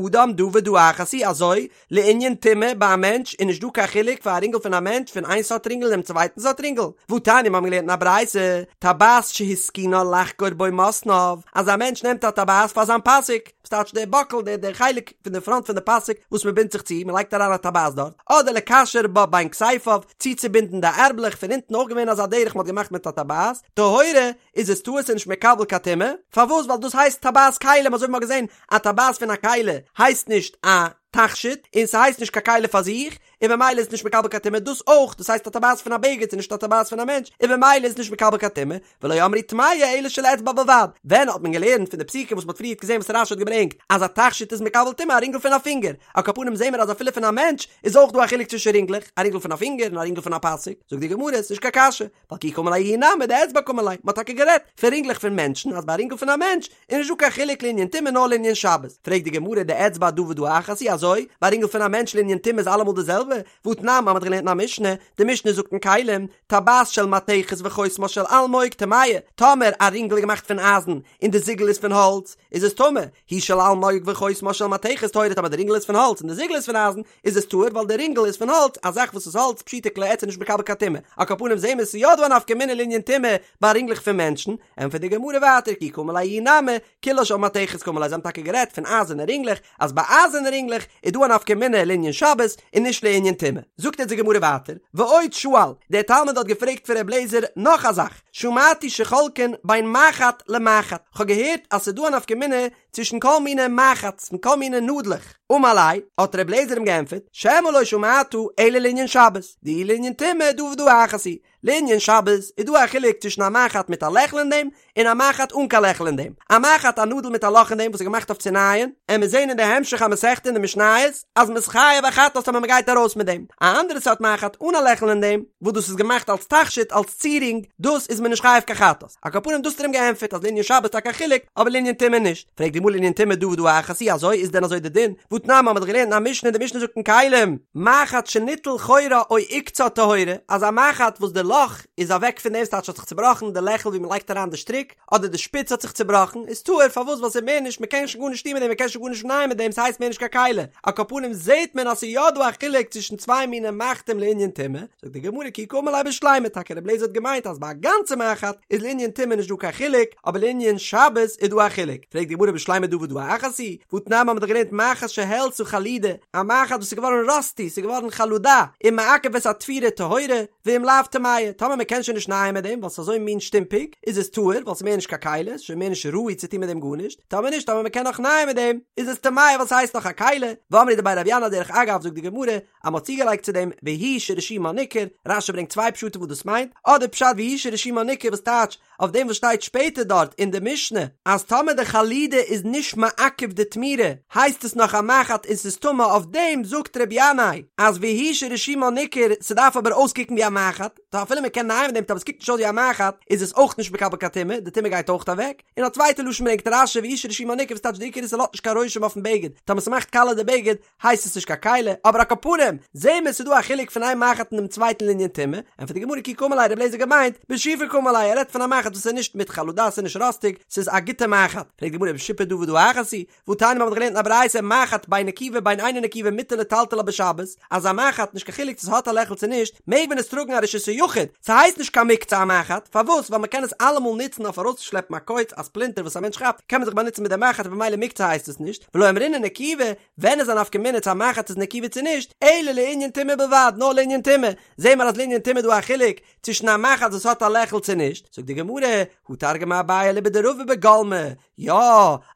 ודאדם דא ודא אחת היא אזוי לענין טומאה ביי א מענטש איז נישט דא קיין חילוק פאר א רינגל פון א מענטש פון איין סארט רינגל און דעם צווייטן סארט רינגל, והתניא מיר האבן געלערנט אין א ברייתא, טבעת שהתקינה לחגור בו מתניו, אז א מענטש נעמט א טבעת פאר זיין פאסיק, וואס טייטש דער באקל דער דער חלק פון די פראנט פון די פאסיק וואס מען בינדט זיך צו, מען לייגט אריין א טבעת דארט, אדער לקשר בה בין כתפיו, צוצובינדן די ערבלעך פון אונטן אויך געווען אזא דרך מען האט געמאכט מיט א טבעת, טהורה, איז עס טהור ס'איז נישט מקבל קיין טומאה, פארוואס ווייל דאס הייסט טבעת כלים אזוי ווי מען האט געזען א טבעת פון א כלי הייסט נישט א תכשיט און ס'הייסט נישט קיין כלי פאר זיך און במילא איז נישט מקבל קיין טומאה דאס אויך דאס הייסט א טבעת פון א בגד ס'איז נישט א טבעת פון א מענטש און במילא איז נישט מקבל קיין טומאה ולא אמרו טמאה אלא של אצבע בלבד ווען האט מען געלערנט פון די פסוקים וואס מ'האט פריערט געזען וואס רש"י האט געברענגט אז א תכשיט איז מקבל טומאה א רינגל פון א פינגער על כל פנים זעהן מיר אז אפילו פון א מענטש איז אויך דא א חילוק צווישן רינגלעך א רינגל פון א פינגער און א רינגל פון א פאסיק זאגט די גמרא ס'נישט קיין קשיא ווייל כי קאמר ליה איהו נמי דאצבע קאמר ליה, מ'האט טאקע גערעדט פון רינגלעך פון מענטשן אז ביי א רינגל פון א מענטש איז נישט דא קיין חילוק לענין טומאה נאר לענין שבת, פרעגט די גמרא דאצבע דא ודא אחת היא אזוי, ביי א רינגל פון א מענטש לענין טומאה איז אלעמאל די זעלבע, והתנן מ'האט געלערנט אין א משנה, די משנה זאגט אין כלים, טבעת של מתכת וחותמה של אלמוג טמאה, טאמער א רינגל איז געמאכט פון אייזן און די זיגל איז פון האלץ, איז עס טמא, היא של אלמוג וחותמה של מתכת טהורה טאמער די רינגל איז פון האלץ און די זיגל איז פון אייזן, איז עס טהור ווייל די רינגל איז פון האלץ, א זאך וואס איז האלץ פשיטא כלי עץ איז נישט מקבל קיין טומאה, על כל פנים זעהן מיר ס'איז יא דא א נפקא מינה לענין טומאה ביי רינגלעך פון מענטשן, ענטפערט די גמרא ווייטער כי קאמר ליה איהו נמי, כולה של מתכת קאמר ליה זיי האבן טאקע גערעדט פון אייזערנע רינגלעך, אז ביי אייזערנע רינגלעך איז דא א נפקא מינה לענין שבת און נישט לענין טומאה. זאגט אונז די גמרא ווייטער, ועוד שאל, דער תלמיד האט געפרעגט פון ר' אליעזר נאך א זאך, שמעתי שחולקין בין מחט למחט, כ'האב געהערט אז ס'איז דא א נפקא מינה צווישן כל מיני מחט און כל מיני נאדלעך. אמר ליה, האט ר' אליעזר אים געענטפערט, שמא לא שמעת אלא לענין שבת, דאי לענין טומאה דא ודא אחת היא. לענין שבת איז דא א חילוק צווישן א מחט מיט א לעכל אין דעם, און א מחט אן קיין לעכל אין דעם. א מחט א נאדל מיט א לאך אין דעם וואס איז געמאכט אויף צו נייען, עמיר זעהן אין די המשך המסכתא אין די משניות אז מ'איז חייב א חטאת טאמער מ'גייט ארויס מיט דעם. א אנדערע סארט מחט אן א לעכל אין דעם, וואס דאס איז געמאכט אלס תכשיט אלס צירונג, דאס איז מען נישט חייב קיין חטאת. על כל פנים דאס האט ער אים געענטפערט אז לענין שבת איז טאקע א חילוק, אבער לענין טומאה נישט. פרעגט די גמרא לענין טומאה דא ודא אחת היא אזוי איז דען אזוי די דין? והתנן מ'האט דאך געלערנט אין א משנה די משנה זאגט אין כלים, מחט שניטל חורה או עוקצה טהורה, אז א מחט וואס די לאך איז אוועק פון דעם ס'טייטש האט זיך צובראכן די לעכל ווי מ'לייגט אריין די שטריק, אדער די שפיץ האט זיך צובראכן, איז טהור, פארוואס ווייל ס'איז מער נישט מ'קען שוין גארנישט טון מיט דעם מ'קען שוין גארנישט נייען מיט דעם ס'הייסט מער נישט קיין כלי, על כל פנים זעהט מען אז ס'איז יא דא א חילוק צווישן צוויי מיני מחטים לענין טומאה, זאגט די גמרא כי קאמר ליה בשלימה, טאקע רבי אליעזר האט געמיינט אז ביי א גאנצע מחט איז לענין טומאה נישט דא קיין חילוק, אבער לענין שבת איז דא א חילוק, פרעגט די גמרא בשלימה דא ודא אחת היא, והתנן מ'האט דאך געלערנט מחט שהעלתה חלודה, א מחט וואס איז געווארן ראסטי, ס'איז געווארן חלודה, ומעכב את התפירה טהורה, ואם לאו טמאה, טאמער מ'קען שוין נישט נייען מיט דעם ווייל ס'איז אזוי מין שטומפיג, איז עס טהור ווייל ס'איז מער נישט קיין כלי, ס'איז שוין מער נישט ראוי צו טון מיט דעם גארנישט, טאמער נישט, טאמער מ'קען נאך נייען מיט דעם, איז עס טמאה ווייל ס'הייסט נאך א כלי, ואמרי דבי רבי ינאי דרך אגב זאגט די גמרא, אז מ'האט צוגעלייגט צו דעם והוא שרשומה ניכר, רש"י ברענגט צוויי פשטים וואס דאס מיינט, אדער פשט והוא שרשומה ניכר וואס טייטש אויף דעם וואס שטייט שפעטער דארט אין די משנה אז טאמער די חלודה איז נישט מעכב די תמירה הייסט עס נאך א מחט און ס'איז טמא אויף דעם זאגט רבי ינאי אז והוא שרשומה ניכר ס'דארף אבער אויסקוקן ווי א מחט טא אפילו מ'קען נייען מיט דעם טאמער ס'קוקט נישט אויס ווי א מחט איז עס אויך נישט מקבל קיין טומאה די טומאה גייט אויך אוועק און א צווייטע לשון ברענגט רש"י והוא שרשומה ניכר וואס טייטש די עיקר איז ס'לאזט נישט קיין רושם אויפן בגד טאמער ס'מאכט קאלע די בגד הייסט עס נישט קיין כלי, אבער על כל פנים, זעהן מיר ס'איז דא א חילוק פון איין מחט און דעם צווייטן לענין טומאה, ענטפערט די גמרא כי קאמר ליה רבי אליעזר געמיינט, בשיפה קאמר ליה, ער רעדט פון א מחט וואס איז נישט מיט חלודה ס'איז נישט ראסטיג, ס'איז א גוטע מחט, פרעגט די גמרא בשיפה דא ודא אחת היא, והתניא מ'האט געלערנט אין א ברייתא מחט בין נקובה בין אינה נקובה מותר לטלטלה בשבת, אז א מחט נישט קיין חילוק צו ס'האט א לעכל צו נישט, מעג מען עס טראגן א רשות היחיד, ס'הייסט נישט קיין מוקצה א מחט, פארוואס? ווייל מ'קען עס אלעמאל נוצן אויף ארויסצושלעפן א קוץ, א ספלינטער וואס א מענטש כאפט, קען מען זיך באנוצן מיט די מחט און במילא מוקצה הייסט עס נישט, ולא אמרינן נקובה, ווען איז א נפקא מינה צו א מחט איז נקובה צו נישט, אלא לענין טומאה בלבד, נאר לענין טומאה, זעהן מיר אז לענין טומאה איז דא א חילוק צווישן א מחט וואס האט א לעכל צו נישט, זאגט די גמרא, הא תרגמא אביי אליבא דרבא בגולמי, יא,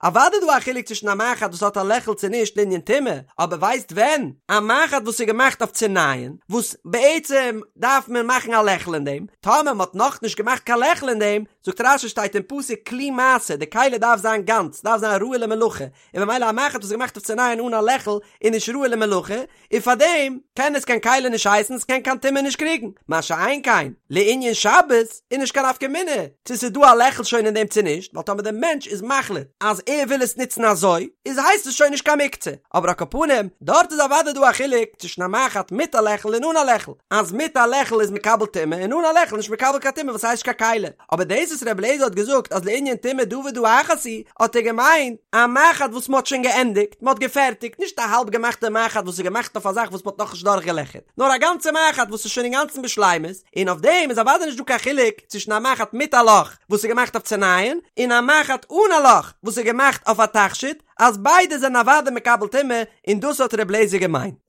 אוודאי איז דא א חילוק צווישן א מחט וואס האט א לעכל צו נישט לענין טומאה, אבער ווייסט ווען? א מחט וואס איז געמאכט אויף צו נייען, וואס בעצם דארף מען מאכן א לעכל אין דעם, טאמער מען האט נאכנישט געמאכט קיין לעכל אין דעם, זאגט רש"י שטייט אין פסוק כלי מעשה, די כלי דארף זיין גאנץ, דארף זיין ראוי למלאכה, און במילא א מחט וואס איז געמאכט אויף צו נייען אן א לעכל איז נישט ראוי למלאכה, און פארדעם קען עס קיין כלי נישט הייסן, עס קען קיין טומאה נישט קריגן, מה שאין כן לענין שבת איז נישט קיין נפקא מינה צו ס'איז דא א לעכל שוין אין דעם צו נישט, ווייל טאמער דער מענטש איז מחליט אז ער וויל עס נוצן אזוי, איז הייסט עס שוין נישט קיין מוקצה, אבער על כל פנים, דארט איז אוודאי דא א חילוק צווישן א מחט מיט א לעכל און אן א לעכל, אז מיט א לעכל איז מקבל טומאה און אן א לעכל נישט מקבל קיין טומאה וואס הייסט נישט קיין כלי. אבער דאס וואס רבי אליעזר האט געזאגט אז לענין טומאה דא ודא אחת היא, האט ער געמיינט א מחט וואס מ'האט שוין געענדיגט, מ'האט געפערטיגט, נישט א האלב געמאכטע מחט וואס איז געמאכט אויף א זאך וואס מ'האט נאכנישט דורכגעלעכערט, נאר א גאנצע מחט וואס איז שוין אינגאנצן בשלימות, און אויף דעם איז אוודאי נישט דא קיין חילוק צווישן א מחט מיט א לאך וואס איז געמאכט אויף צו נייען, און א מחט אן א לאך וואס איז געמאכט אויף א תכשיט, אז ביידע זענען אוודאי מקבל טומאה, און דאס האט רבי אליעזר געמיינט.